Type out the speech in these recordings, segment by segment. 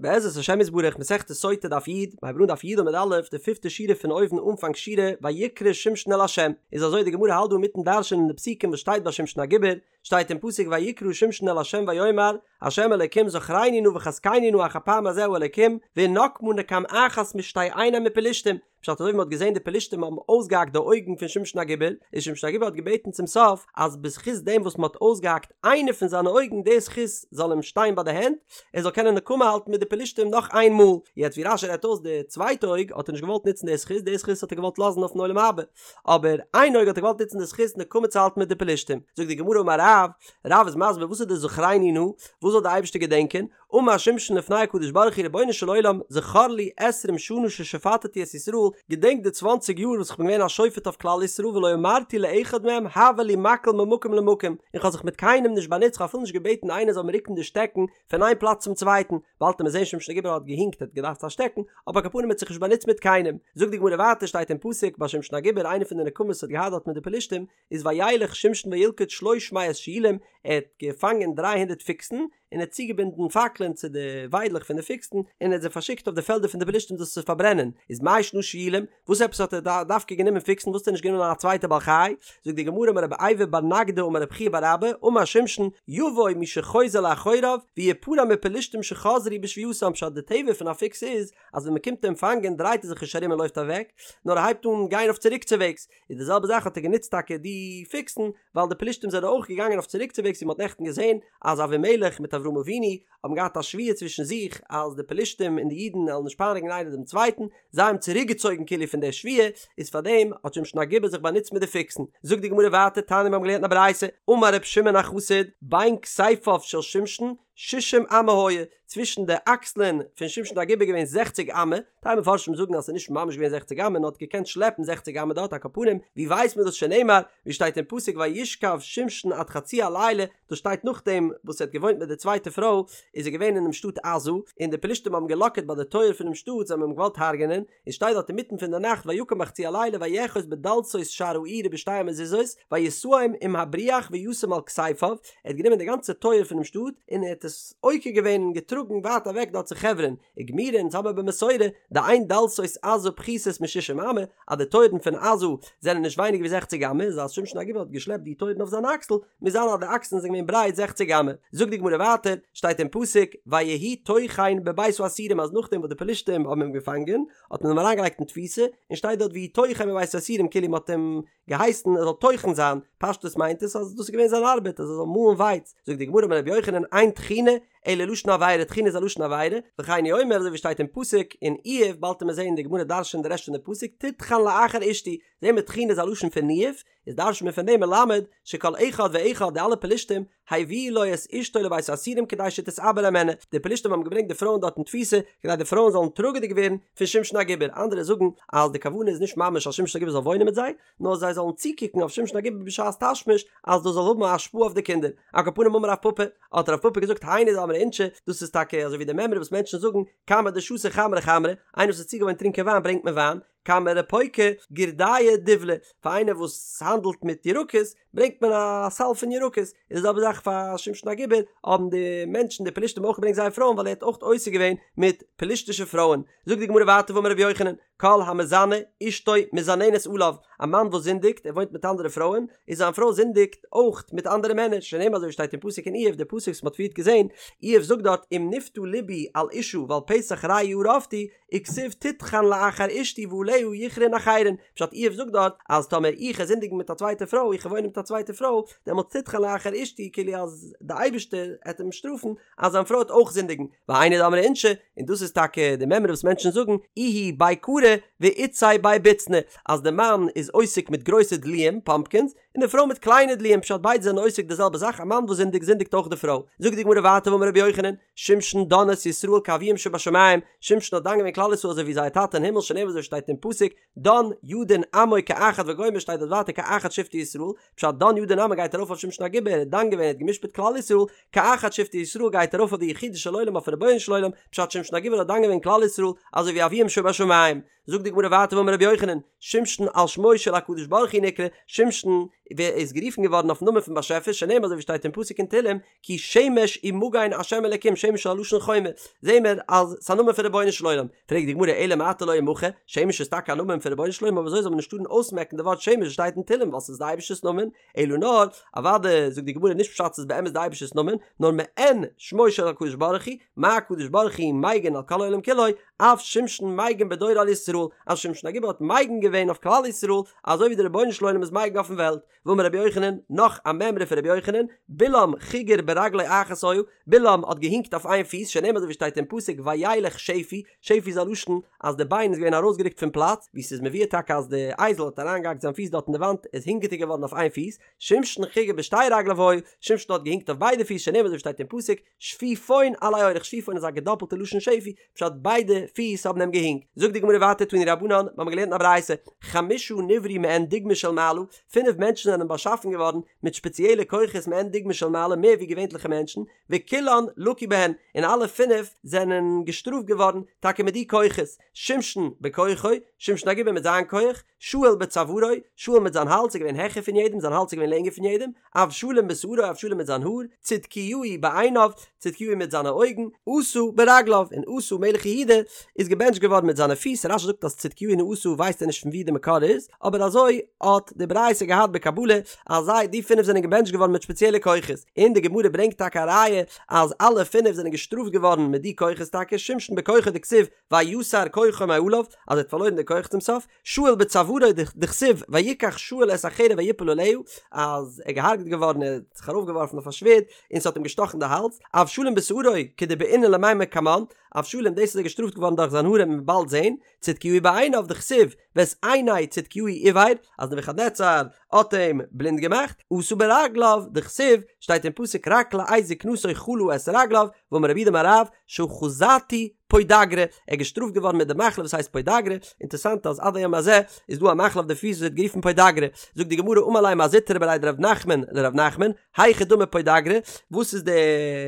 בעזרת השם יתברך מסכת סוטה דף י', מיר הייבן אן דף י' עמוד א', די פיפטע שורה פון אויבן אנפאנג שורה, ויקרא שמשון אל ה'. איז אזוי די גמרא האלט דא אינמיטן דרש'ענען די פסוקים וואס שטייט ביי שמשון הגיבור, שטייט אין פסוק ויקרא שמשון אל ה' ויאמר, ה' אלקים זכרני נא וחזקני נא אך הפעם הזה האלקים, ואנקמה נקם אחת משתי עיני מפלשתים, פשט אזוי ווי מען האט געזען די פלשתים האבן אויסגעהאקט די אויגן פון שמשון הגיבור, איז שמשון הגיבור האט געבעטן צום סוף אז בזכות דעם וואס מען האט אויסגעהאקט איינע פון זיינע אויגן די זכות זאל אים שטיין ביי די הענט, ער זאל קענען נקמה האלטן מיט די פלשתים נאך איין מאל, יעצט ווי רש"י רעדט אויס די צווייטע אויג האט ער נישט געוואלט נוצן די זכות, די זכות האט ער געוואלט לאזן אויפן עולם הבא, אבער איין אויג האט ער געוואלט נוצן די זכות נקמה צו האלטן מיט די פלשתים, זאגט די גמרא אמר רב, רב איז מסביר וואס איז די זכרני נא, וואס זאל די אייבערשטער געדענקען, אמר שמשון לפני הקדוש ברוך הוא רבונו של עולם זכור לי עשרים שנה ששפטתי את ישראל, געדענק די צוואנציג יאר וואס איך בין געווען א שופט אויף כלל ישראל ולא אמרתי לאחד מהם העבר לי מקל ממקום למקום, און כ'האב זיך מיט קיינעם נישט באנוצט כ'האב אפילו נישט געבעטן איינער זאל מיר רוקן די שטעקן פון איין פלאץ צום צווייטן, באלד וועט מען זען שמשון הגיבור האט געהינקט ער האט געדארפט א שטעקן, אבער על כל פנים האט זיך נישט באנוצט מיט קיינעם. זאגט די גמרא ווייטער שטייט אין פסוק ביי שמשון הגיבור איינע פון די נקמות וואס האט געהאט דארט מיט די פלשתים איז וילך שמשון וילכד שלוש מאות שועלים ער האט געפאנגען דריי הונדערט פיקסן, און ער האט צוגעבינדן פאקלען צו די וויידלעך פון די פיקסן, און ער האט זיי פארשיקט אויף די פעלדער פון די פלשתים דאס צו פארברענען, איז מאי שנא שועלים, וואס עפעס האט ער דווקא גענומען פיקסן, וואס האט ער נישט גענומען א צווייטע בעל חי? זאגט די גמרא אמר רבי אייבו בר נגדי אמר רבי חייא בר אבא, אמר שמשון, יבוא מי שחוזר לאחוריו, ויפרע מפלשתים שחזרו בשבועתם, פשט די טבע פון א פיקס איז, אז ווען מען קומט אים פאנגען דרייט ער זיך נישט ארום און לויפט אוועק, נאר ער הייבט אן גיין אויף צוריקצוועגס, איז די זעלבע זאך האט ער גענוצט טאקע די פיקסן, ווייל די פלישתים זענען אויך געגאנגען אויף צוריקצוועגס ווי מען האט נעכטן געזען אז אבימלך מיט אברהם אבינו האבן געהאט א שבועה צווישן זיך אז די פלישתים און די אידן וועלן נישט פייניגן איינער דעם צווייטן, זיי האבן צוריקגעצויגן כאילו פון דער שבועה, איז פארדעם האט שמשון הגיבור זיך באנוצט מיט די פיקסן. זאגט די גמרא ווייטער תניא מיר האבן געלערנט אין א ברייתא, אמר ר' שמעון החסיד, בין כתפיו של שמשון שישים אמה היה, צווישן די אקסלען פון שמשון הגיבור איז געווען זעכציג אמה, טייל מפרשים זאגן אז ס'איז נישט ממש געווען זעכציג אמה נאר האט געקענט שלעפן זעכציג אמה דארט על כל פנים, ווי ווייסט מען דאס שנאמר, ווי שטייט אין פסוק וישכב שמשון עד חצי הלילה, דאס שטייט נאכדעם וואס ער האט געוואוינט מיט די צווייטע פרוי, איז ער געווען אינעם שטאט עזה, און די פלישתים האבן געלאקערט ביי די טויער פונעם שטאט, זיי האבן אים געוואלט הרג'ענען, און שטייט דארט אינמיטן פון די נאכט ויקם בחצי הלילה ויאחז בדלתות שער העיר ובשתי המזוזות וישאם עם הבריח וישם על כתפיו, ער האט גענומען די גאנצע טויער פונעם שטאט און ער האט עס עוקר געווען און געטראגן ווייט אוועק דארט צו חברון, וגמירי אונז האבן במסורה דאין דלתות עזה פחותות משישים אמה, אז די טויערן פון עזה זענען נישט ווייניגער ווי זעכציג אמה, איז אז שמשון הגיבור האט געשלעפט די טויערן אויף זיין אקסל, מוז זיין אז די אקסלען זענען געווען ברייט זעכציג אמה. זאגט די גמרא ווייטער, שטייט אין פסוק, ויהי טוחן בבית האסורים אז נאכדעם וואס די פלישתים האבן אים געפאנגען, האט מען אים אריינגעלייגט אין תפיסה, און שטייט דארט ויהי טוחן בבית האסורים כאילו מען האט אים געהייסן ער זאל טוחן זיין, פשטות מיינט עס אז דאס איז געווען זיין ארבעט אז ער זאל מאלן ווייץ, זאגט די גמרא אמר רבי יוחנן אין טחינה אלא לשון עבירה, טחינה איז א לשון עבירה, וכן הוא אומר אזוי ווי שטייט אין פסוק אין איוב, באלד וועט מען זען די גמרא דרש'נט די רעשט פון די פסוק, תטחן לאחר אשתי, זעהן מיר טחינה איז א לשון פון ניאוף, איז דרש'נט מען פון דעם מלמד שכל אחד ואחד די אלע פלישתים הביאו לו את אשתו לבית האסורים כדי שתתעבר הימנה, די פלישתים האבן געברענגט די פרויען דארט אין תפיסה כדי די פרויען זאלן טראגעדיג ווערן פון שמשון הגיבור, אנדערע זאגן אז די כוונה איז נישט ממש אז שמשון הגיבור זאל וואוינען מיט זיי, נאר זיי זאלן צוקוקן אויף שמשון הגיבור בשעת תשמיש אז דאס זאל האבן א השפעה אויף די קינדער. על כל פנים אמר רב פפא, האט רב פפא געזאגט היינו דאמרי אינשי, דאס איז טאקע אזוי ווי די מימרא וואס מענטשן זאגן, כמה דשתו חמרא חמרא, איינער וואס איז צוגעוואוינט טרינקען וויין ברענגט מען וויין, כמה רפוקי גורדיא דובלא, פאר איינער וואס האנדלט מיט ירקות ברענגט מען א סל פון ירקות, איז די זעלבע זאך פאר שמשון הגיבור, האבן די מענטשן די פלישתים אויך געברענגט זייער פרויען ווייל ער האט אויך עוסק געווען מיט פלישתישע פרויען, זאגט די גמרא ווייטער ואמר רבי יוחנן, כל המזנה אשתו מזננת עליו, א מאן וואס זינדיגט, ער וואוינט מיט אנדערע פרויען, איז זיין פרוי זינדיגט אויך מיט אנדערע מענער, שנאמר אזוי ווי שטייט אין פסוק אין איוב, די פסוק וואס מען האט פריערט געזען, איוב זאגט דארט אם נפתה לבי על אשה ועל פתח רעי ארבתי, וכתיב תטחן לאחר אשתי ועליה יכרעון אחרים, פשט איוב זאגט דארט אז טאמער איך וועל זינדיגן מיט א צווייטע פרוי, איך וועל וואוינען מיט א צווייטע פרוי, דעמאלטס תטחן לאחר אשתי כאילו אז די אייבערשטער העט אים שטראפן אז זיין פרוי העט אויך זינדיגן, והיינו דאמרי אינשי, און דאס איז טאקע די מימרא וואס מענטשן זאגן, איהו בי כרי ואיתתיה בי בוצני, אז די מאן איז עוסק מיט גרויסע דלועים, פאמפקינס, און די פרוי מיט קליינע דלועים, פשט ביידע זענען עוסק די זעלבע זאך, א מאן וואס זינדיגט זינדיגט אויך די פרוי. זאגט די גמרא ווייטער ואמר רבי יוחנן, שמשון דן את ישראל כאביהם שבשמים, שמשון האט דן געווען כלל ישראל אזוי ווי זייער טאטע אין הימל שנאמר אזוי שטייט אין פסוק, דן ידין עמו כאחד וגומר שטייט דארט ווייטער כאחד שבטי ישראל, פשט דן ידין עמו גייט ארויף אויף שמשון הגיבור ער האט דן געווען ער האט גע'משפט כלל ישראל, כאחד שבטי ישראל גייט ארויף אויף די יחידו של עולם אויפן רבונו של עולם, פשט שמשון הגיבור האט דן געווען כלל ישראל אזוי ווי אביהם שבשמים. זאגט די גמרא ווייטער ואמר רבי יוחנן, שמשון על שמו של הקדוש ברוך הוא נקרא, שמשון. איז גערופן געווארן אויפן נאמען פון באשעפער שנאמר אזוי ווי שטייט אין פסוק אין תהלים כי שמש ומגן השם אלקים שמש איז א לשון חומה זעהן מיר אז ס'איז א נאמען פון רבונו של עולם פרעגט די גמרא אלא מעתה לא ימחה שמש איז טאקע א נאמען פון רבונו של עולם אבער אזוי זאל מען נישט טארן אויסמעקן די ווארט שמש וואס שטייט אין תהלים ווייל ס'איז די אייבערשטער'ס נאמען אלא נאר אוודאי זאגט די גמרא נישט פשט ס'איז באמת די אייבערשטער'ס נאמען נאר מעין שמו של הקדוש ברוך הוא מה הקדוש ברוך הוא מגין על כל העולם כולו אף שמשון מגין בדורו על ישראל אז שמשון הגיבור האט מגין געווען אויף כלל ישראל אזוי ווי די רבונו של עולם איז מגין אויפן וועלט ואמר רבי יוחנן, נאך א מימרא פון רבי יוחנן, בלעם חיגר ברגלו אחת היה, בלעם האט געהינקט אויף איין פיס, שנאמר אזוי ווי שטייט אין פסוק וילך שפי, שפי איז א לשון אז די ביין איז געווען ארויסגערוקט פון פלאץ, ווי ס'איז מבואר טאקע אז די אייזל האט אריינגעהאקט זיין פיס דארט אין די וואנט, איז הינקעדיג געווארן אויף איין פיס, שמשון חיגר בשתי רגליו היה, שמשון האט געהינקט אויף ביידע פיס, שנאמר אזוי ווי שטייט אין פסוק, שפיפון עלי אורח, שפיפון איז א געדאפלטע לשון שפי, פשט ביידע פיס האבן אים געהינקט. זאגט די גמרא ווייטער תנו רבנן, מיר האבן געלערנט אין א ברייתא, חמשה נבראו מעין דוגמא של מעלה, פינף מענטשן זענען באשאפן געווארן מיט שפעציעלע כוחות מעין דוגמא של מעלה מער ווי געווענטליכע מענטשן, וכולן לקו בהן, און אלע פינף זענען געשטראפט געווארן טאקע מיט די כוחות, שמשון בכוחו, שמשון הגיבור מיט זיין כח, שאול בצווארו, שאול מיט זיין האלז איז געווען העכער פון יעדעם, זיין האלז איז געווען לענגער פון יעדעם, אבשלום בשערו, אבשלום מיט זיין האר, צדקיהו בעיניו, צדקיהו מיט זיינע אויגן, אסא ברגליו, און אסא מלך יהודה איז געבענטשט געווארן מיט זיינע פיס, רש"י זאגט אז צדקיהו און אסא ווייסט ער נישט פון וואו די מקור איז, אבער אזוי האט די ברייתא געהאט בקבלה אז זיי די פינף זענען געבענטשט געווארן מיט שפעציעלע כוחות, און די גמרא ברענגט טאקע א ראיה אז אלע פינף זענען געשטראפט געווארן מיט די כוחות טאקע, שמשון בכוחו דכתיב ויסר כוחו מעליו, אז ער האט פארלוירן די כח צום סוף, שאול בצווארו דכתיב ויקח שאול את החרב ויפול עליה, אז ער איז געהארגעט געווארן ער האט זיך ארויפגעווארפן אויף א שווערד און ס'האט אים געשטאכן די האלז, אבשלום בשערו כדבעינן למימר קמן, אבשלום דאס איז ער געשטראפט געווארן דורך זיין האר וועט מען באלד זעהן, צדקיהו בעיניו דכתיב ואת עיני צדקיהו עור, אז נבוכדנצר האט אים בלינד געמאכט, אסא ברגליו דכתיב שטייט אין פסוק רק לעת זקנתו חלה את רגליו, ואמר רב יהודה אמר רב שאחזתו פוידאגרא, ער איז געשטראפט געווארן מיט די מחלה וואס הייסט פוידאגרא, אינטערסאנט אז עד היום הזה איז דא א מחלה אויף די פיס וואס ווערט גערופן פוידאגרא, זאגט די גמרא אמר ליה מר זוטרא בריה דרב נחמן לרב נחמן, היכי דמי פוידאגרא, וואס איז די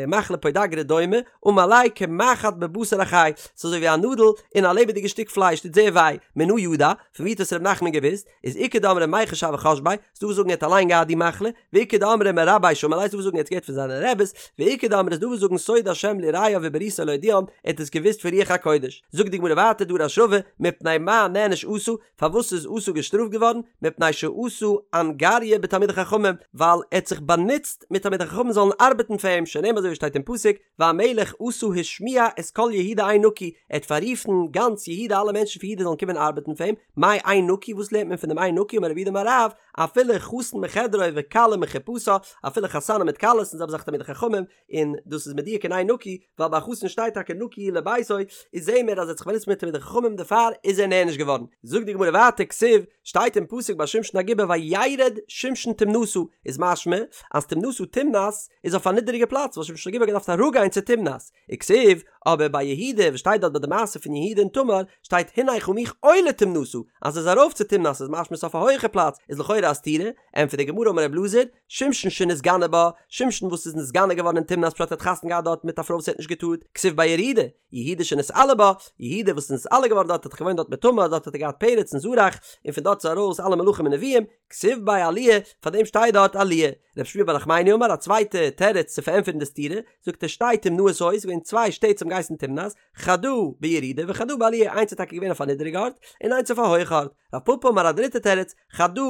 מחלה פוידאגרא דומה, אמר ליה כמחט בבשר החי, ס'איז אזוי ווי א נאדל אין א לעבעדיגע שטיק פלייש, טוט זייער וויי, מנא ידע, פון ווי האט עס רב נחמן געוואוסט? איז איכא דאמרי מיחש הוה חש ביה, ס'דא וואס זאגן ער האט אליין געהאט די מחלה, ואיכא דאמרי מרביה שמע ליה, ס'דא וואס זאגן ער האט עס געהערט פון זיינע רעבעס, ואיכא דאמרי ס'דא וואס זאגן סוד השם ליראיו ובריתו להודיעם, ער האט עס געוואוסט פון רוח הקודש. זאגט די גמרא ווייטער דרש רבא, מפני מה נענש אסא, פארוואס איז אסא געשטראפט געווארן, מפני שעשה אנגריא בתלמידי חכמים, ווייל ער האט זיך באנוצט מיט תלמידי חכמים זאלן ארבעטן פאר אים, שנאמר אזוי ווי שטייט אין פסוק, והמלך אסא השמיע את כל יהודה עין נקי, ער האט פאררופן גאנץ יהודה אלע מענטשן פון יהודה זאלן קומען ארבעטן פאר אים, מאי עין נקי וואס לערנט מען פון דעם עין נקי אמר רב יהודה אמר רב, אפילו חתן מחדרו וכלה מחופתה, אפילו חתנים מיט כלות און זעלבע זאך תלמידי חכמים, און דאס איז מדויק אין עין נקי, ווייל ביי חתן שטייט טאקע נקי הוא לביתו, איז זעהן מיר אז ער האט זיך באנוצט מיט תלמידי חכמים דערפאר איז ער נענש געווארן. זאגט די גמרא ווייטער כתיב, שטייט אין פסוק ביי שמשון הגיבור וירד שמשון תמנתה, איז משמע אז תמנתה תמנת איז אויף א נידעריגע פלאץ וואס שמשון הגיבור האט געדארפט אראפגיין צו תמנת, וכתיב, אבער ביי יהודה וואס שטייט דארט ביי די מעשה פון יהודה און תמר, שטייט הנה חמיך עולה תמנתה, אז ער איז ארויף צו תמנת איז משמע ס'איז אויף א הויעכע פלאץ, איז לכאורה א סתירה, ענטפערט די גמרא אמר רב אלעזר, שמשון שנתגנה בה, שמשון וואס איז נתגנה געווארן אין תמנת פשט ער האט חתונה געהאט דארט מיט א פרוי וואס ער האט נישט געטארט, כתיב ביה ירידה, יהודה שנתעלה בה, יהודה וואס איז נתעלה געווארן דארט האט זיך געוואוינט דארט מיט תמר, דארט האט ער געהאט פרץ און זרח, און פון דארט איז ארויס אלע מלכים און נביאים, כתיב ביה עליה, פאר דעם שטייט דארט עליה. רב שמואל בר נחמני אמר א צווייטע תירוץ צו פארענטפערן די סתירה, זאגט ער שתי תמנאות היו, ס'איז געווען צוויי שטעט וואס האבן געהייסן תמנת, חדא בירידה וחדא בעליה, איינס איז טאקע געווען אויף א נידעריגע ארט, און איינס אויף א הויכע ארט. רב פפא אמר א דריטע תירוץ, חדא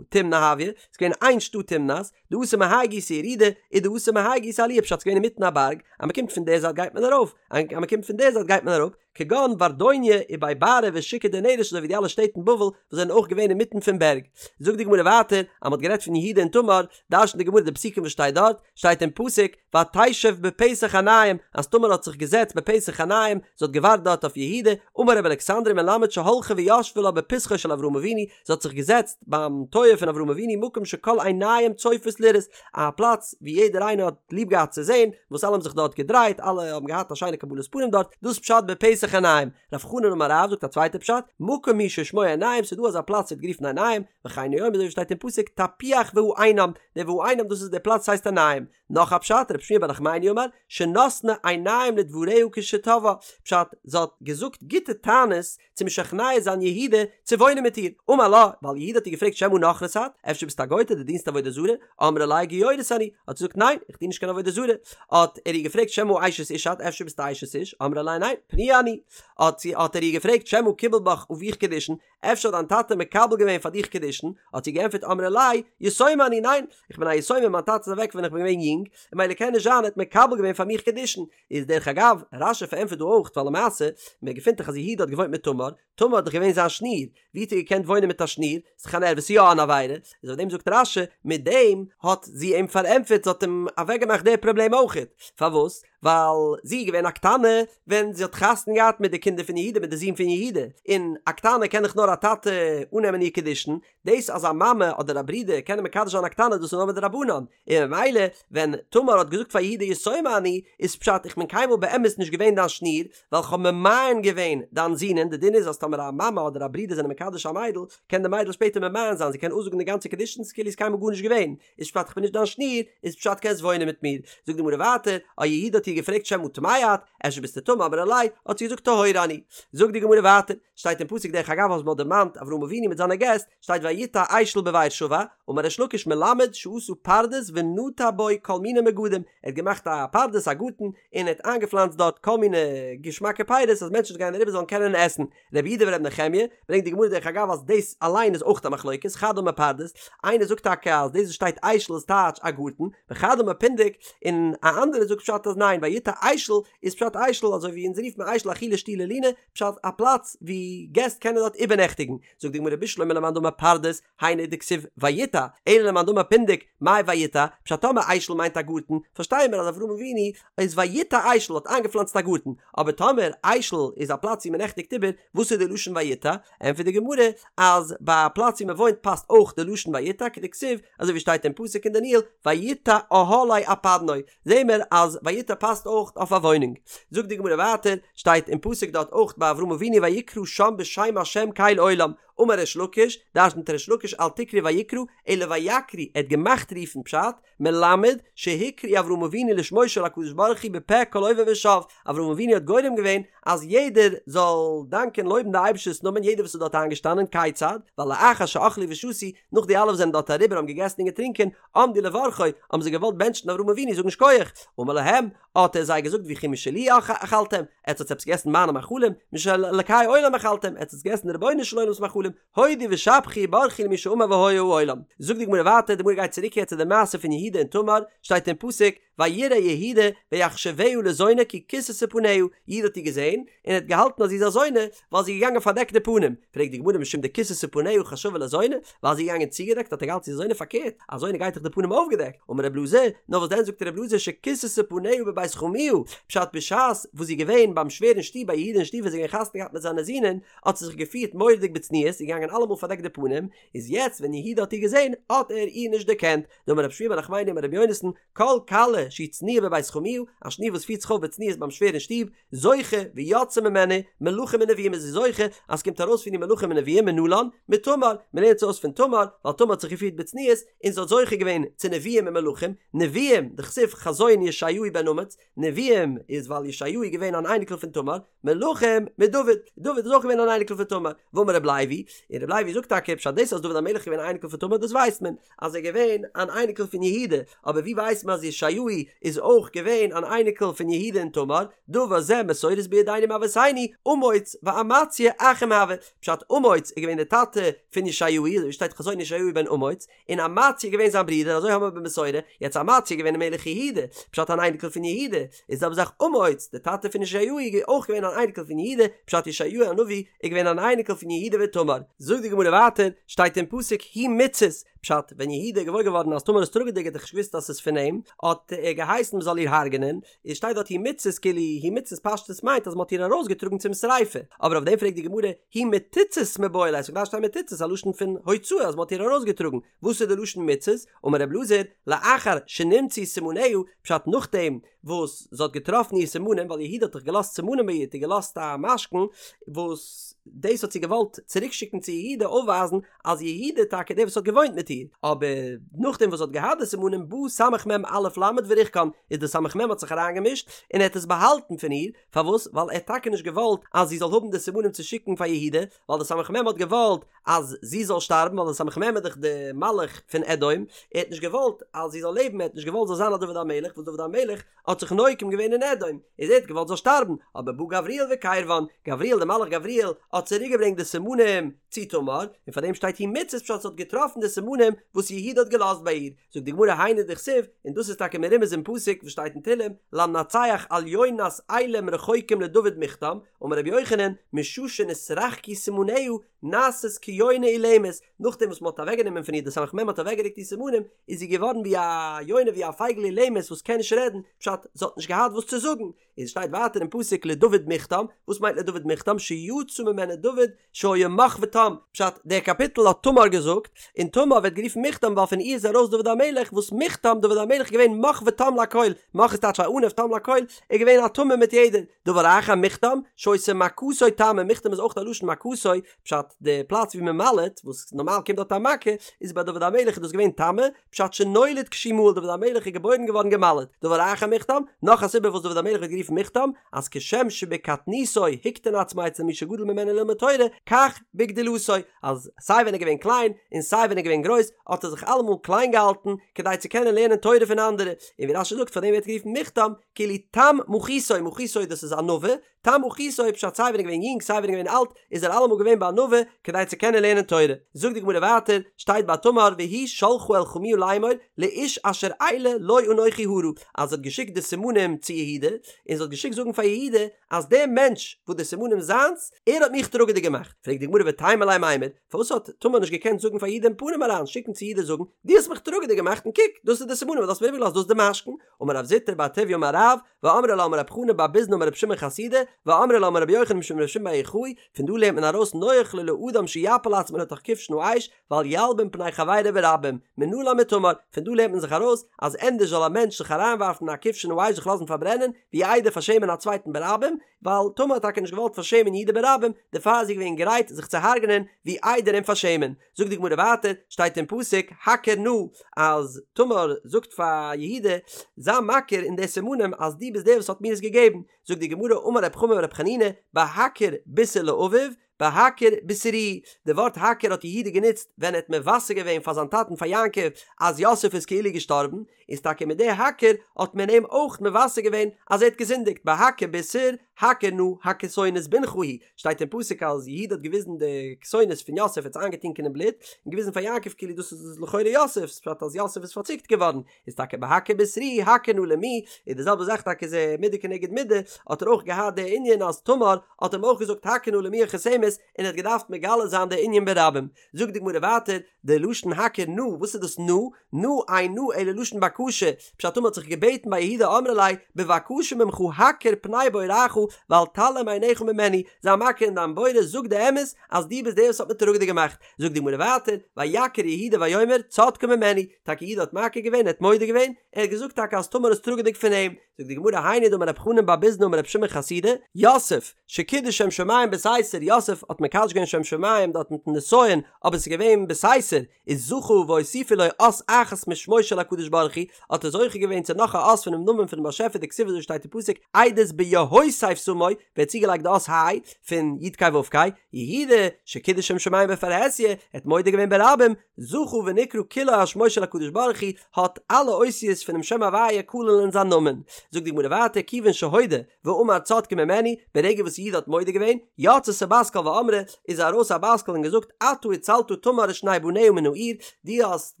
תמנא הואי, ס'איז געווען איין שטאט תמנת, דאתא מהאי גיסא ירידה, ודאתא מהאי גיסא עליה, פשט ס'איז געווען אינמיטן א בארג, אז מ'קומט פון די זייט גייט מען ארויף, אז מ'קומט פון די זייט גייט מען אראפ, כגון ורדוניא ובי בארי ושוקא דנרש אזוי ווי די אלע שטעט אין בבל וואס זענען אויך געווען אינמיטן פון בערג. זאגט די גמרא ווייטער אז מ'האט גערעדט פון יהודה און תמר, דרש'נט די גמרא די פסוקים וואס שטייט דארט, שטייט אין פסוק ותשב בפתח עינים אז תמר האט זיך געזעצט בפתח עינים, זי האט געווארט דארט אויף יהודה, אמר רבי אלכסנדרי מלמד שהלכה וישבה לה בפתחו של אברהם אבינו, זי האט זיך געזעצט ביים טויער פון אברהם אבינו מקום שכל עיניים צופות לראות, א פלאץ ווי יעדער איינער האט ליב געהאט צו זען, וואס אלע האבן זיך דארט געדרייט, אלע האבן געהאט א שיינע קבלת פנים דארט, דאס דאס פשט בפתח עינים. רב חנן אמר רב זאגט א צווייטע פשט, מקום הוא ששמו עינים, ס'איז דא אזא פלאץ ווערט גערופן עינים, וכן הוא אומר אזוי ווי שטייט אין פסוק תפוח והעינם, דער והעינם דאס איז דער פלאץ הייסט עינים. נאך א פשט, רב שמואל בר נחמני אמר, שנתנה עיניים לדבריה כשתבעה, פשט, זי האט געזאגט גוטע טענות צו משכנע זיין יהודה צו וואוינען מיט איר, אמר לה, ווייל יהודה האט איר געפרעגט שמא נכרית את, אפשר ביסטו א גויטע דו דינסט עבודה זרה, אמרה ליה גיורת אני, האט זי געזאגט ניין, איך דין נישט קיין עבודה זרה, האט ער איר געפרעגט שמא אשת איש את, אפשר ביסטו אשת איש, אמרה ליה ניין, פנויה אני, האט זי האט ער איר געפרעגט שמא קיבל בך אביך קידושין, אפשר האט דיין טאטע מקבל געווען פאר דיך קידושין, האט זי געענטפערט אמרה ליה, יתומה אני, ניין, איך בין א יתומה מיין טאטע איז אוועק ווען איך בין געווען יונג, און ממילא קען נישט זיין ער האט מקבל געווען פאר מיך קידושין, איז דרך אגב, רש"י פארענטפערט דא אויך ווייל למעשה, מען געפינט דאך אז יהודה האט געוואוינט מיט תמר, תמר האט דאך געווען זיין שניר, ווי האט ער געקענט וואוינען מיט א שניר, ס'איז דאך אן ערוה, ס'איז יא אן עבירה, איז אויף דעם זאגט רש"י, מיט דעם האט זי אים פארענטפערט, זי האט אים אוועקגעמאכט די פראבלעם אויכעט, פארוואס? ווייל זי איז געווען א קטנה ווען זי האט חתונה געהאט מיט די קינדער פון יהודה מיט די זון פון יהודה, און א קטנה קען דאך נאר א טאטע אננעמען איר קידושין, דאס אז א מאמע אדער א ברודער קענען מקדש זיין א קטנה דאס איז נאר מדרבנן, און ממילא ווען תמר האט געזאגט פאר יהודה יתומה אני, איז פשט איך בין קיינמאל באמת נישט געווען דיין שניר, ווייל כ'האב ממאן געווען דיין זונען, די דין איז אז טאמער א מאמע אדער א ברודער זענען מקדש א מיידל, קען די מיידל שפעטער ממאן זיין, זי קען אפזאגן די גאנצע קידושין כאילו איז קיינמאל גארנישט געווען, איז פשט כ'בין נישט דיין שניר, איז פשט קענסט וואוינען מיט מיר. זאגט די גמרא ווייטער, אה יהודה האט איר געפרעגט שמא טמאה את, אפשר ביסטו טמא אמרה ליה, האט זי געזאגט טהורה אני. זאגט די גמרא ווייטער, שטייט אין פסוק דרך אגב אז מ'האט דערמאנט אברהם אבינו מיט זיינע געסט, שטייט ויטע אשל בבאר שבע, אמר ריש לקיש מלמד שעשה פרדס ונטע בו כל מיני מגדים, ער האט געמאכט א פרדס א גארטן, און ער האט איינגעפלאנצט דארט כל מיני געשמאקע פירות אז מענטשן וואס גייען אריבער זאלן קענען עסן. רבי יהודה ורבי נחמיה, ברענגט די גמרא דרך אגב אז דאס אליין איז אויך א מחלוקת, חד אמר פרדס, איינער זאגט טאקע אז דאס וואס שטייט אשל איז טייטש א גארטן, וחד אמר פונדק, און א אנדערער זאגט פשט אז ניין ויטע אשל איז פשט אשל אזוי ווי אונז רופט מען אשל אכילה שתי' לינה, פשט א פלאץ ווי געסט קענען דארט איבערנעכטיגן, זאגט די גמרא בשלמא למאן דאמר פרדס, היינו דכתיב ויטע, אלא למאן דאמר פונדק, מאי ויטע, פשט טאמער אשל מיינט א גארטן, פארשטייען מיר אז אברהם אבינו איז ויטע אשל האט איינגעפלאנצט א גארטן, אבער טאמער אשל איז א פלאץ ווי מען נעכטיגט איבער, וואס איז די לשון ויטע? ענטפערט די גמרא אז ביי א פלאץ ווי מען וואוינט פאסט אויך די לשון ויטע כדכתיב, אזוי ווי שטייט אין פסוק אין דניאל ויטע אהלי אפדנו, זעהן מיר אז ויטע פאסט אויך אויף א וואוינונג. זאגט די גמרא ווייטער, שטייט אין פסוק דארט אויך ביי אברהם אבינו ויקרא שם בשם השם קל עולם, אמר ריש לקיש, דרשנט ריש לקיש אל תקרי ויקרא, אלא ויקריא, ער האט געמאכט רופן פשט, מלמד, שהקריא אברהם אבינו לשמו של הקדוש ברוך הוא בפה כל עובר ושב, אברהם אבינו האט גורם געווען אז יעדער זאל דאנקען לויבן די אייבערשטער'ס נאמען יעדער וואס איז דארט איינגעשטאנען, כיצד, ווייל לאחר שאכלו ושתו, נאך די אלע וואס זענען דארט אריבער האבן געגעסן און געטרינקען, עמדו לברכו, האבן זיי געוואלט בענטשן אברהם אבינו זאגן שכוח, אמר להם, האט ער זיי געזאגט וכי משלי אכלתם, עטס האטס עפעס געגעסן מיינע מאכלים, משל אלקי עולם אכלתם, עטס האטס געגעסן די רבונו של עולם'ס מאכלים, הודו ושבחו וברכו למי שאמר והיה העולם. זאגט די גמרא ווייטער, די גמרא גייט צוריק יעצט צו די מעשה פון יהודה און תמר, שטייט אין פסוק, ויראה יהודה ויחשבה לזונה כי כסתה פניה, יהודה האט איר געזען, און ער האט געהאלטן אז זי איז א זונה, ווייל זי איז געגאנגען פארדעקט די פנים, פרעגט די גמרא משום דכסתה פניה חשבה לזונה, ווייל זי איז געגאנגען צוגעדעקט האט ער געהאלטן זי איז א זונה פארקערט, א זונה גייט דאך די פנים אויפגעדעקט, אמר רב אלעזר, נאר וואס דען זאגט רב אלעזר שכסתה פניה בבית חמיה, פשט בשעת וואס זי איז געווען ביים שווער אין שטוב ביי יהודה אין שטוב ווען זי האט געווען חתונה געהאט מיט זיינע זינען, האט זי זיך געפירט מורא'דיג בצניעות, זי איז געגאנגען אלעמאל פארדעקט די פנים, איז יעצט ווען יהודה האט איר געזען האט ער איר נישט דערקענט, דאמר רב שמואל בר נחמני אמר רבי יונתן, כל כלה שהיא צנועה בבית חמיה, א שניר וואס פירט זיך אויף בצניעות ביים שווער אין שטוב, זוכה ויוצאה ממנה מלכים ונביאים איז זי זוכה אז ס'קומט ארויס פון איר מלכים און נביאים מנלן מתמר, מ'לערנט עס אויס פון תמר, ווייל תמר האט זיך געפירט בצניעות און זי האט זוכה געווען צו נביאים און מלכים, נביאים, דכתיב חזון ישעיהו בן אמוץ, נביאים איז ווייל ישעיהו איז געווען אן אייניקל פון תמר, מלכים מדוד, דוד איז אויך געווען אן אייניקל פון תמר, ואמר רב לוי, און רב לוי זאגט טאקע פשט דאס אז דוד המלך איז געווען אן אייניקל פון תמר דאס ווייסט מען, אז ער איז געווען אן אייניקל פון יהודה, אבער ווי ווייסט מען אז ישעיהו איז אויך געווען אן אייניקל פון יהודה און תמר, דבר זה מסורת בידינו מאבותינו, אמוץ ואמציה אחים הוו, פשט אמוץ איז געווען דער טאטע פון ישעיהו, אזוי ווי שטייט חזון ישעיהו בן אמוץ, און אמציה איז געווען זיין ברודער, אזוי האבן מיר במסורה, יעצט אמציה איז געווען מלך יהודה, פשט אן אייניקל פון יהודה, איז זעלבע זאך אמוץ, דער טאטע פון ישעיהו איז אויך געווען אן אייניקל פון יהודה, פשט ישעיהו הנביא איז געווען אן אייניקל פון יהודה ותמר. זאגט די גמרא ווייטער, שטייט אין פסוק היא מוצאת, פשט, ווען יהודה איז געוואויר געווארן אז תמר איז טראגעדיג האט ער נישט געוואוסט אז ס'איז פון אים, האט ער געהייסן מ'זאל איר הרג'נען, איז שטייט דארט היא מוצאת כאילו היא מוצאת פשטות מיינט אז מ'האט איר ארויסגעטראגן צום שריפה, אבער אויף דעם פרעגט די גמרא היא מתוצאת מיבעי ליה, ס'האט געדארפט שטיין מתוצאת א לשון פון הוצאה אז מ'האט איר ארויסגעטראגן, וואס איז די לשון מוצאת? אמר רב אלעזר, לאחר שנמצאו סימניה, פשט נאכדעם וואס זי האט געטראפן איר סימנים, ווייל יהודה האט דאך געלאזט סימנים ביי איר, האט איר געלאזט א משכון, וואס דאס האט זי געוואלט צוריק שיקן צו יהודה אויפווייזן אז יהודה איז טאקע דער וואס האט געוואוינט מיט איר, אבער נאכדעם וואס זי האט געהאט די סימנים בא סמך מם אלף למד וריחקן, איז די סמך מם האט זיך אריינגעמישט און ער האט עס באהאלטן פון איר, פארוואס? ווייל ער האט טאקע נישט געוואלט אז זי זאל האבן די סימנים צו שיקן פאר יהודה, ווייל די סמך מם האט געוואלט אז זי זאל שטארבן, ווייל די סמך מם איז דאך די מלאך פון אדום, ער האט נישט געוואלט אז זי זאל לעבן, ער האט נישט געוואלט זאל זיין א דוד המלך, וואס דוד המלך האט זיך נוקם געווען אין אדום, איז ער האט געוואלט זאל שטארבן, אבער בא גבריאל וקירבן, גבריאל די מלאך גבריאל האט צוריק געברענגט די סימנים צו תמר, און פאר דעם שטייט היא מוצאת פשט זי האט געטראפן די סימנים וואס יהודה האט געלאזט ביי איר, זאגט די גמרא היינו דכתיב, און דאס איז טאקע מרומז אין פסוק וואס שטייט אין תהלים, למנצח על יונת אילם רחוקים לדוד מכתם, אמר רבי יוחנן, משעה שנתרחקו סימניה נעשית כיונה אילמת, נאכדעם וואס מען האט אוועקגענומען פון איר די סמך מם האט אוועקגערוקט איר סימנים, איז זי געווארן ווי א יונה ווי א פייגל אילמת וואס קען נישט רעדן, פשט, זי האט נישט געהאט וואס צו זאגן, און שטייט ווייטער אין פסוק לדוד מכתם, וואס מיינט לדוד מכתם? שיצא ממנו דוד שהיה מך ותם, פשט, דער קאפיטל האט תמר געזאגט, און תמר ווערט גערופן מכתם ווייל פון איר איז ארויס דוד המלך, וואס מכתם, דוד המלך איז געווען מך ותם לכל, מך איז טייטש א עניו תם לכל, ער איז געווען א תמים מיט יעדער, דבר אחר מכתם, שהיתה מכתו תמה, מכתם איז אויך א לשון מכתו, פשט, די פלאץ ווי מען מל'עט, וואס נארמאל קומט דארט א מכה, איז ביי דוד המלך איז דאס געווען תמה, פשט שנולד כשהוא מהול דוד המלך איז געבוירן געווארן געמל'עט, דבר אחר מכתם, נאך א סיבה וואס דוד המלך ווערט גערופן מכתם, אז כשם שבקטנותו הקטין עצמו אצל מי שגדול ממנו ללמוד תורה, כך בגדולתו, אז סיי ווען ער איז געווען קליין, און סיי ווען ער איז געווען גרויס, האט ער זיך אלעמאל קליין געהאלטן, כדי צו קענען לערנען תורה פון אנדערע, און ווי רש"י זאגט פאר דעם ווערט גערופן מכתם, כאילו תם מחיתו, מחיתו דאס איז ענווה, תם מחיתו פשט סיי ווען ער איז געווען יונג סיי ווען ער איז געווען אלט איז ער אלעמאל געווען בענווה כדי צו קענען לערנען תורה. זאגט די גמרא ווייטער, שטייט ביי תמר והיא שלחה אל חמיה לאמור לאיש אשר אלה לו אנכי הרה, אז זי האט געשיקט די סימנים צו יהודה, און זי האט געשיקט זאגן פאר יהודה אז דער מענטש וואס די סימנים זיינס, ער האט מיך טראגעדיג געמאכט. פרעגט די גמרא ותימה ליה מימר, פארוואס האט תמר נישט געקענט זאגן פאר יהודה אין פנים אריין, שיקן צו יהודה זאגן, דו האסט מיך טראגעדיג געמאכט און קוק, דאס איז די סימנים וואס דו האסט מיר איבערגעלאזט, דאס איז די משכון, אמר רב זוטרא בר טוביה אמר רב, ואמרי לה אמר רב חנא בר ביזנא אמר רבי שמעון חסידא, ואמרי לה אמר רבי יוחנן משום רבי שמעון בר יוחאי, פון דא לערנט מען ארויס נוח לו לאדם שיפיל עצמו לתוך כבשן האש, ואל ילבין פני חברו ברבים, מנלן מתמר, פון דא לערנט מען זיך ארויס, אז ענדערש זאל א מענטש זיך אריינווארפן אין א כבשן האש זיך לאזן פארברענען, ווי איידער פארשעמען א צווייטן ברבים, ווייל תמר האט טאקע נישט געוואלט פארשעמען יהודה ברבים, דערפאר איז זי געווען גרייט זיך צו הרג'נען, ווי איידער אים פארשעמען. זאגט די גמרא ווייטער, שטייט אין פסוק, הכר נא, אז תמר זאגט פאר יהודה, זיי מכיר אין די סימנים אז דו ביסט דער וואס האט מיר עס געגעבן, זאגט די גמרא, אמר רב חמא ברב חנינא, בהכר בישר לאביו, בהכר בישרוהו, די ווארט הכר האט יהודה גענוצט ווען ער האט מבשר געווען פאר זיין טאטן פאר יעקב אז יוסף איז כאילו געשטארבן, איז טאקע מיט די הכר האט מען אים אויך מבשר געווען אז ער האט געזינדיגט, בהכר בישר, הכר נא הכתונת בנך היא, שטייט אין פסוק אז יהודה האט געוויזן די כתונת פון יוסף האט עס איינגעטונקען אין בלוט, און געוויזן פאר יעקב כאילו דאס איז לכאורה יוסף'ס, פשט אז יוסף איז פארציקט געווארן, איז טאקע בהכר בישרוהו הכר נא למי, איז די זעלבע זאך טאקע איז מידה כנגד מידה, האט ער אויך געהאט די ענין אז תמר האט אים אויך געזאגט הכר נא למי החותמת, און ער האט געדארפט מגלה זיין די ענין ברבים. זאגט די גמרא ווייטער, די לשון הכר נא, וואס איז דאס נא? נא אין נא אלא לשון בקשה, פשט תמר האט זיך געבעטן ביי יהודה אמרה ליה, בבקשה ממך הכר פני בוראך ואל תעלים עיניך ממני, זיי מכיר אין דיין בורא, זאג די אמת אז דו ביסט דער וואס האט מיר טראגעדיג געמאכט. זאגט די גמרא ווייטער, ויכר יהודה ויאמר צדקה ממני, טאקע יהודה האט מכיר געווען, ער האט מודה געווען, ער האט געזאגט טאקע אז תמר איז טראגעדיג פון אים, זאגט די גמרא היינו דאמר רב חנן בר ביזנא אמר רבי שמעון חסידא, יוסף, שקידש שם שמים בסתר, יוסף האט מקדש געווען שם שמים דארט מיטן נסיון, אבער עס איז געווען בסתר, איז זכה והוסיפו לו אות אחת משמו של הקדוש ברוך הוא, האט ער זוכה געווען צו נאך א אות פונעם נאמען פונעם באשעפער דכתיב אזוי שטייט אין פסוק עדות ביהוסף שמו, ווערט צוגעלייגט די אות ה' פון י' ק' ו' ק', יהודה, שקידש שם שמים בפרהסיא, ער האט מודה געווען ברבים, זכה ונקרא כולו על שמו של הקדוש ברוך הוא, האט אלע אותיות פונעם שם הוויה כולל אין זיין נאמען. זאגט די גמרא ווייטער כיוון שהודה ואמר צדקה ממני, ברגע וואס יהודה האט מודה געווען, יצתה בת קול ואמרה, איז ארויס א בת קול און געזאגט אתה הצלת תמר ושני בניה מן האור, דו האסט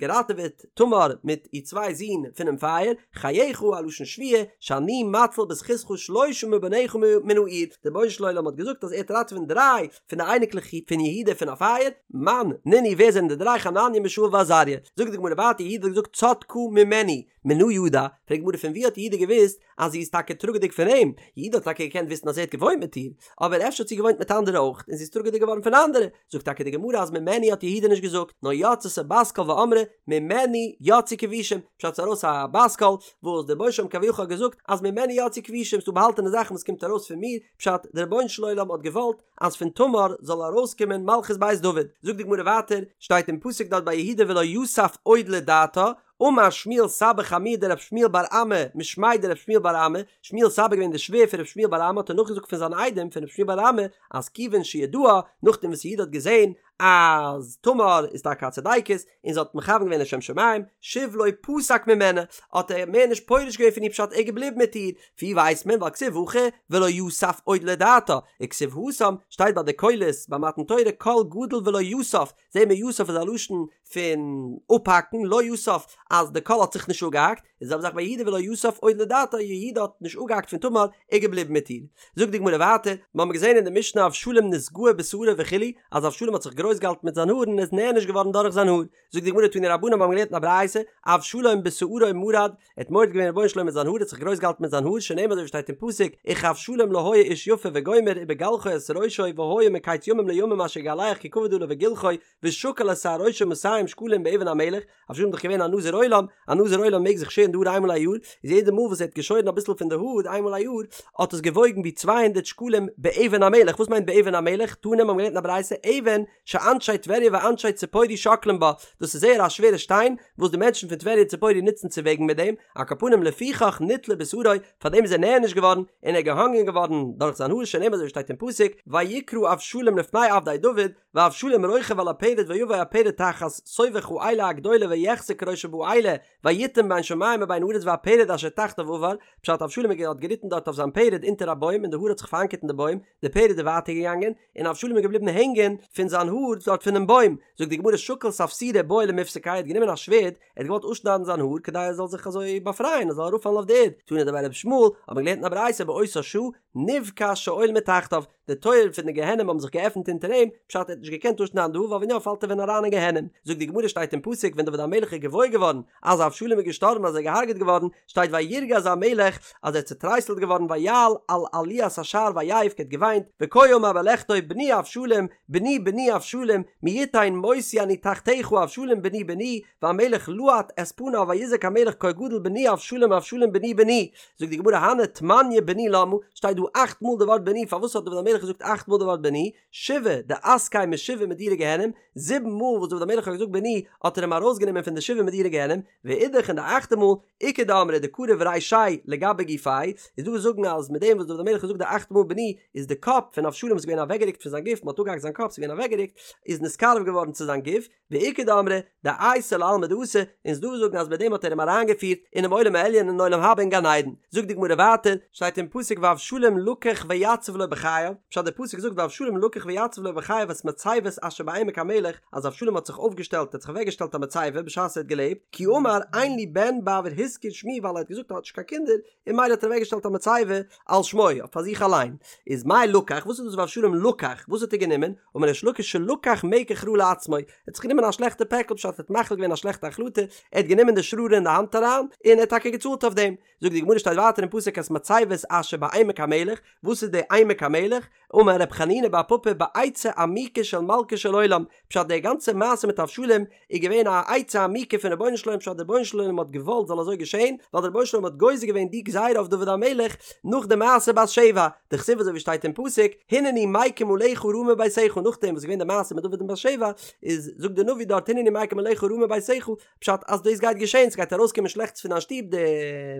געראטעוועט תמר מיט איר צוויי זין פונעם פייער, חייך א לשון שבועה, שאני מציל בזכותך שלושה מבניך מן האור, דער רבונו של עולם האט געזאגט אז ער וועט ראטעווען דריי פון די אייניקלעך פון יהודה פון א פייער, מאן נינהו ווער זענען די דריי חנניה מישאל ועזריה, זאגט די גמרא ווייטער יהודה האט געזאגט צדקה ממני, מנא ידע, פרעגט די גמרא פון ווי האט יהודה געוואוסט אז זי איז טאקע טראגעדיג פון אים, יהודה האט טאקע געקענט וויסן אז ער האט געוואוינט מיט איר, אבער אפשר האט זי געוואוינט מיט אנדערע אויך און זי איז טראגעדיג געווארן פון אנדערע, זאגט טאקע די גמרא אז ממנו האט יהודה נישט געזאגט, נאר יצתה בת קול ואמרה ממנו יצאו כבושים, פשט ס'איז ארויס א בת קול וואס דער רבונו של עולם כביכול האט געזאגט אז ממנו יצאו כבושים, ס'דא באהאלטענע זאכן וואס קומט ארויס פון מיר, פשט דער רבונו של עולם האט געוואלט אז פון תמר זאל ארויסקומען מלכות בית דוד, זאגט די גמרא ווייטער, שטייט אין פסוק דארט ביי יהודה ולא יסף עוד לדעתה, אמר שמואל סבא חמוה דרב שמואל בר אמי משמיה דרב שמואל בר אמי, שמואל סבא געווען די שווער פון רב שמואל בר אמי האט ער נאכגעזאגט פון זיין איידעם פון רב שמואל בר אמי אז כיוון שידעה נאכדעם וואס יהודה האט געזען אז תמר איז טאקע א צדיקת און זי האט מכוון געווען לשם שמים שוב לא פסק ממנה האט ער מער נישט פורש געווען פון איר פשט ער איז געבליבן מיט איר ווי ווייסט מען ווייל כתיב הכא ולא יסף עוד לדעתה וכתיב התם שטייט ביי די קולות ביי מתן תורה קול גדול ולא יסף זעהן מיר יסף איז א לשון פון אפהאקן, לא יסף אז די קול האט זיך נישט אפגעהאקט, איז די זעלבע זאך ביי יהודה ולא יסף עוד לדעתה, יהודה האט נישט אפגעהאקט פון תמר, ער איז געבליבן מיט איר. זאגט די גמרא ווייטער, מיר האבן געזעהן אין די משנה אבשלום נתגאה בשערו וכו', אז אבשלום האט זיך גרויס געהאלטן מיט זיין האר און איז נענש געווארן דורך זיין האר, זאגט די גמרא תנו רבנן מיר האבן געלערנט אין א ברייתא, אבשלום בשערו מרד, ער האט מורד געווען רבונו של עולם מיט זיין האר, ער האט זיך גרויס געהאלטן מיט זיין האר, שנאמר אזוי ווי שטייט אין פסוק, וכאבשלום לא היה איש יפה וגומר ובגלחו את ראשו והיה מקץ ימים לימים אשר יגלח כי כבד עליו גלחו ושקל את שער ראשו מאתים שקלים באבן המלך, אבשלום איז דאך געווען א נזיר עולם, א נזיר עולם מעג זיך שערן די האר איינמאל א יאר, איז יעדע מאל וואס ער האט געשוירן אביסל פון די האר איינמאל א יאר, האט עס געוואויגן ווי צוויי הונדערט שקלים באבן המלך, וואס מיינט באבן המלך? תנא מיר האבן געלערנט אין א ברייתא, אבן שאנשי טבריה ואנשי ציפורי שוקלים בה, דאס איז זייער א שווערע שטיין וואס די מענטשן פון טבריה און ציפורי נוצן צו וועגן מיט דעם, על כל פנים לפיכך נתלה בשערו, פאר דעם איז ער נענש געווארן, און ער איז געהאנגען געווארן דורך זיין האר, שנאמר אזוי ווי שטייט אין פסוק, ויקרא אבשלום לפני עבדי דוד, ואבשלום רוכב על הפרד ויבא הפרד תחת סובך האלה הגדולה ויחזה כראשו באלה ויתם בין שמים ובין הארץ והפרד אשר תחתיו עבר, פשט אבשלום האט געריטן דארט אויף זיין פערד אונטער א בוים און די האר האט זיך פאראנקערט אין די בוים, די פערד איז ווייטער געגאנגען, און אבשלום איז געבליבן הענגען פון זיין האר דארט פונעם בוים, זאגט די גמרא שקל ספסירא בעי למיפסקיה ער האט גענומען א שווערד, ער האט געוואלט אפשניידן זיין האר כדי ער זאל זיך אזוי באפרייען ער זאל אראפפאלן אויף די ערד, תנא דבי רבי ישמעאל, האט מען געלערנט אין א ברייתא באותה שעה נבקע שאול מתחתיו, די טויערן פון די גיהנום האבן זיך געעפנט אונטער אים, פשט ער האט נישט געקענט אפשניידן די האר ווייל ווען יא פאלט ער ווען אריין אין גיהנום, זאגט די גמרא שטייט אין פסוק ווען דוד המלך איז געוואויר געווארן אז אבשלום איז געשטארבן אז ער איז געהארגעט געווארן, שטייט וירגז המלך אז ער איז צוטרייסלט געווארן ויעל על עליית השער ויבך ער האט געוויינט וכה אמר בלכתו בני אבשלום בני בני אבשלום מי יתן מותי אני תחתיך אבשלום בני בני והמלך להט את פניו ויזעק המלך קול גדול בני אבשלום אבשלום בני בני זאגט די גמרא הני תמניא בני למה שטייט דא אכט מאל די ווארט בני פארוואס האט דוד המלך געזאגט אכט מאל די ווארט בני שבעה דאסקיה משבעה מדורי גיהנום זיבן מאל וואס דוד המלך האט געזאגט בני האט ער אים ארויסגענומען פון די שבעה מדורי גיהנום ואידך און די אכטע מאל איכא דאמרי דקריב רישיה לגבי גופיה, איז דא וואס זאגן אז מיט דעם וואס דוד המלך האט געזאגט די אכטע מאל בני איז די קאפ פון אבשלום איז געווען אוועקגערוקט פון זיין גוף, מען האט אפגעהאקט זיין קאפ ס'איז געווען אוועקגערוקט, איז נתקרב געווארן צו זיין גוף, ואיכא דאמרי דאייתיה לעלמא דאתי, און ס'איז דא וואס זאגן אז מיט דעם האט ער אים אריינגעפירט אינעם עולם העליון אין עולם הבא אין גן עדן. זאגט די גמרא ווייטער, שטייט אין פסוק ואבשלום לקח ויצב לו בחייו, פשט די פסוק זאגט ואבשלום לקח ויצב לו בחייו את מצבת אשר בעמק המלך, אז אבשלום האט זיך אויפגעשטעלט, ער האט זיך אוועקגעשטעלט א מצבה בשעת ער האט געלעבט, כי אמר אין לי בן בעבור הזכיר שמי ווייל ער האט געזאגט ער האט נישט קיין קינדער, און ממילא האט ער אוועקגעשטעלט א מצבה על שמו, אויף פאר זיך אליין. איז מאי לקח, וואס איז דאס ואבשלום לקח, וואס האט ער גענומען? אמר ריש לקיש שלקח מקח רע לעצמו, ער האט זיך גענומען א שלעכטע פעקל פשט ער האט מחליט געווען א שלעכטע החלטה, ער האט גענומען די שררה אין די האנט אריין, און ער האט טאקע געצאלט אויף דעם. זאגט די גמרא שטייט ווייטער אין פסוק את מצבת אשר בעמק המלך, וואס איז די עמק המלך? אמר רב חנינא בר פפא בעצה עמוקה של מלכו של עולם, פשט די גאנצע מעשה מיט אבשלום איז געווען א עצה עמוקה פון רבונו של עולם פשט די רבונו של עולם האט געוואלט זאל אזוי געשען, ווייל די רבונו של עולם האט גוזר געווען די גזירה אויף דוד המלך נאך די מעשה בת שבע, דכתיב אזוי ווי שטייט אין פסוק הנני מקים עליך רעה מביתך נאכדעם וואס איז געווען די מעשה מיט דוד און בת שבע איז זאגט די נביא דארט הנני מקים עליך רעה מביתך פשט אז דאס גייט געשען, ס'גייט ארויסקומען שלעכטס פון דיין שטוב, די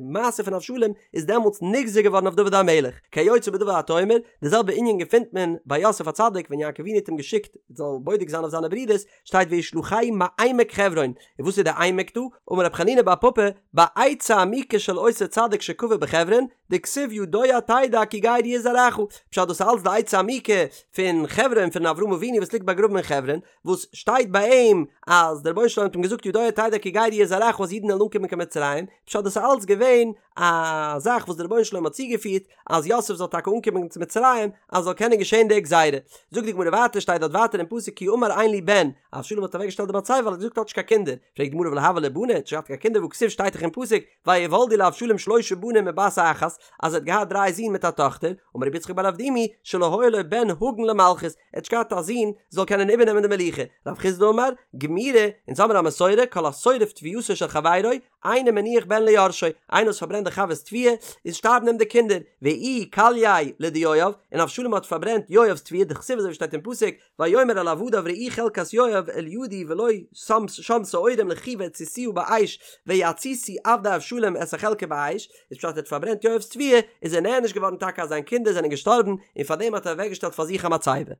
מעשה פון אבשלום איז דעמאלטס נגזר געווארן אויף דוד המלך, כיוצא בדבר אתה אומר, די זעלבע ענין געפינט מען ביי יוסף הצדיק ווען יעקב אבינו האט אים געשיקט זאל בודק זיין אויף זיינע ברידערס, שטייט וישלחהו מעמק חברון, און וואס איז די עמק דא? אמר רב חנינא בר פפא, בעצה עמוקה של אותו צדיק שקבור בחברון, דכתיב ידוע תדע כי גר יהיה זרעך, פשט דאס איז אלץ די עצה עמוקה פון חברון פון אברהם אבינו וואס ליגט ביי. באגראבן אין חברון, וואס שטייט ביי אים אז דער רבונו של עולם האט אים געזאגט ידוע תדע כי גר יהיה זרעך אז אידן וועלן אנקומען קיין מצרים, פשט דאס איז אלץ געווען א זאך וואס דער רבונו של עולם האט צוגעפירט אז יוסף זאל טאקע אנקומען צו מצרים אז זאל קענען געשען די גזירה. זאגט די גמרא ווייטער שטייט דארט ווייטער אין פסוק כי אמר אין לי בן, אבשלום האט אוועקגעשטעלט די מצבה ווייל ער האט געזאגט האט נישט קיין קינדער, פרעגט די גמרא ולא הוו ליה בני, האט נישט געהאט קיין קינדער והכתיב שטייט דאך אין פסוק ויולדו לאבשלום שלשה בנים ובת אחת, אז ער האט געהאט דריי זין מיט א טאכטער, אמר רבי יצחק בר אבדימי, שלא היה לו בן הגון למלכות, ער האט נישט געהאט א זון זאל קענען איבערנעמען די מלוכה, רב חסדא אמר, גמירי, אונז האמיר א מסורה, כל השורף תבואתו של חברו, אינו מניח בן ליורשו, איינער וואס פארברענט די חבר'ס תבואה, איז שטארבן אים די קינדער, ואיהו כלייה לדיואב, און אבשלום האט פארברענט יואב'ס תבואה, דכתיב אזוי ווי שטייט אין פסוק, ויאמר אל עבדיו ראו חלקת יואב אל ידי ולו שם שם שעורים לכו והציתוה באש ויציתו עבדי אבשלום את החלקה באש, איז פשט ער האט פארברענט יואב'ס תבואה, איז ער נענש געווארן טאקע אז זיין קינדער זענען געשטארבן, און פארדעם האט ער אוועקגעשטעלט פאר זיך א מצבה.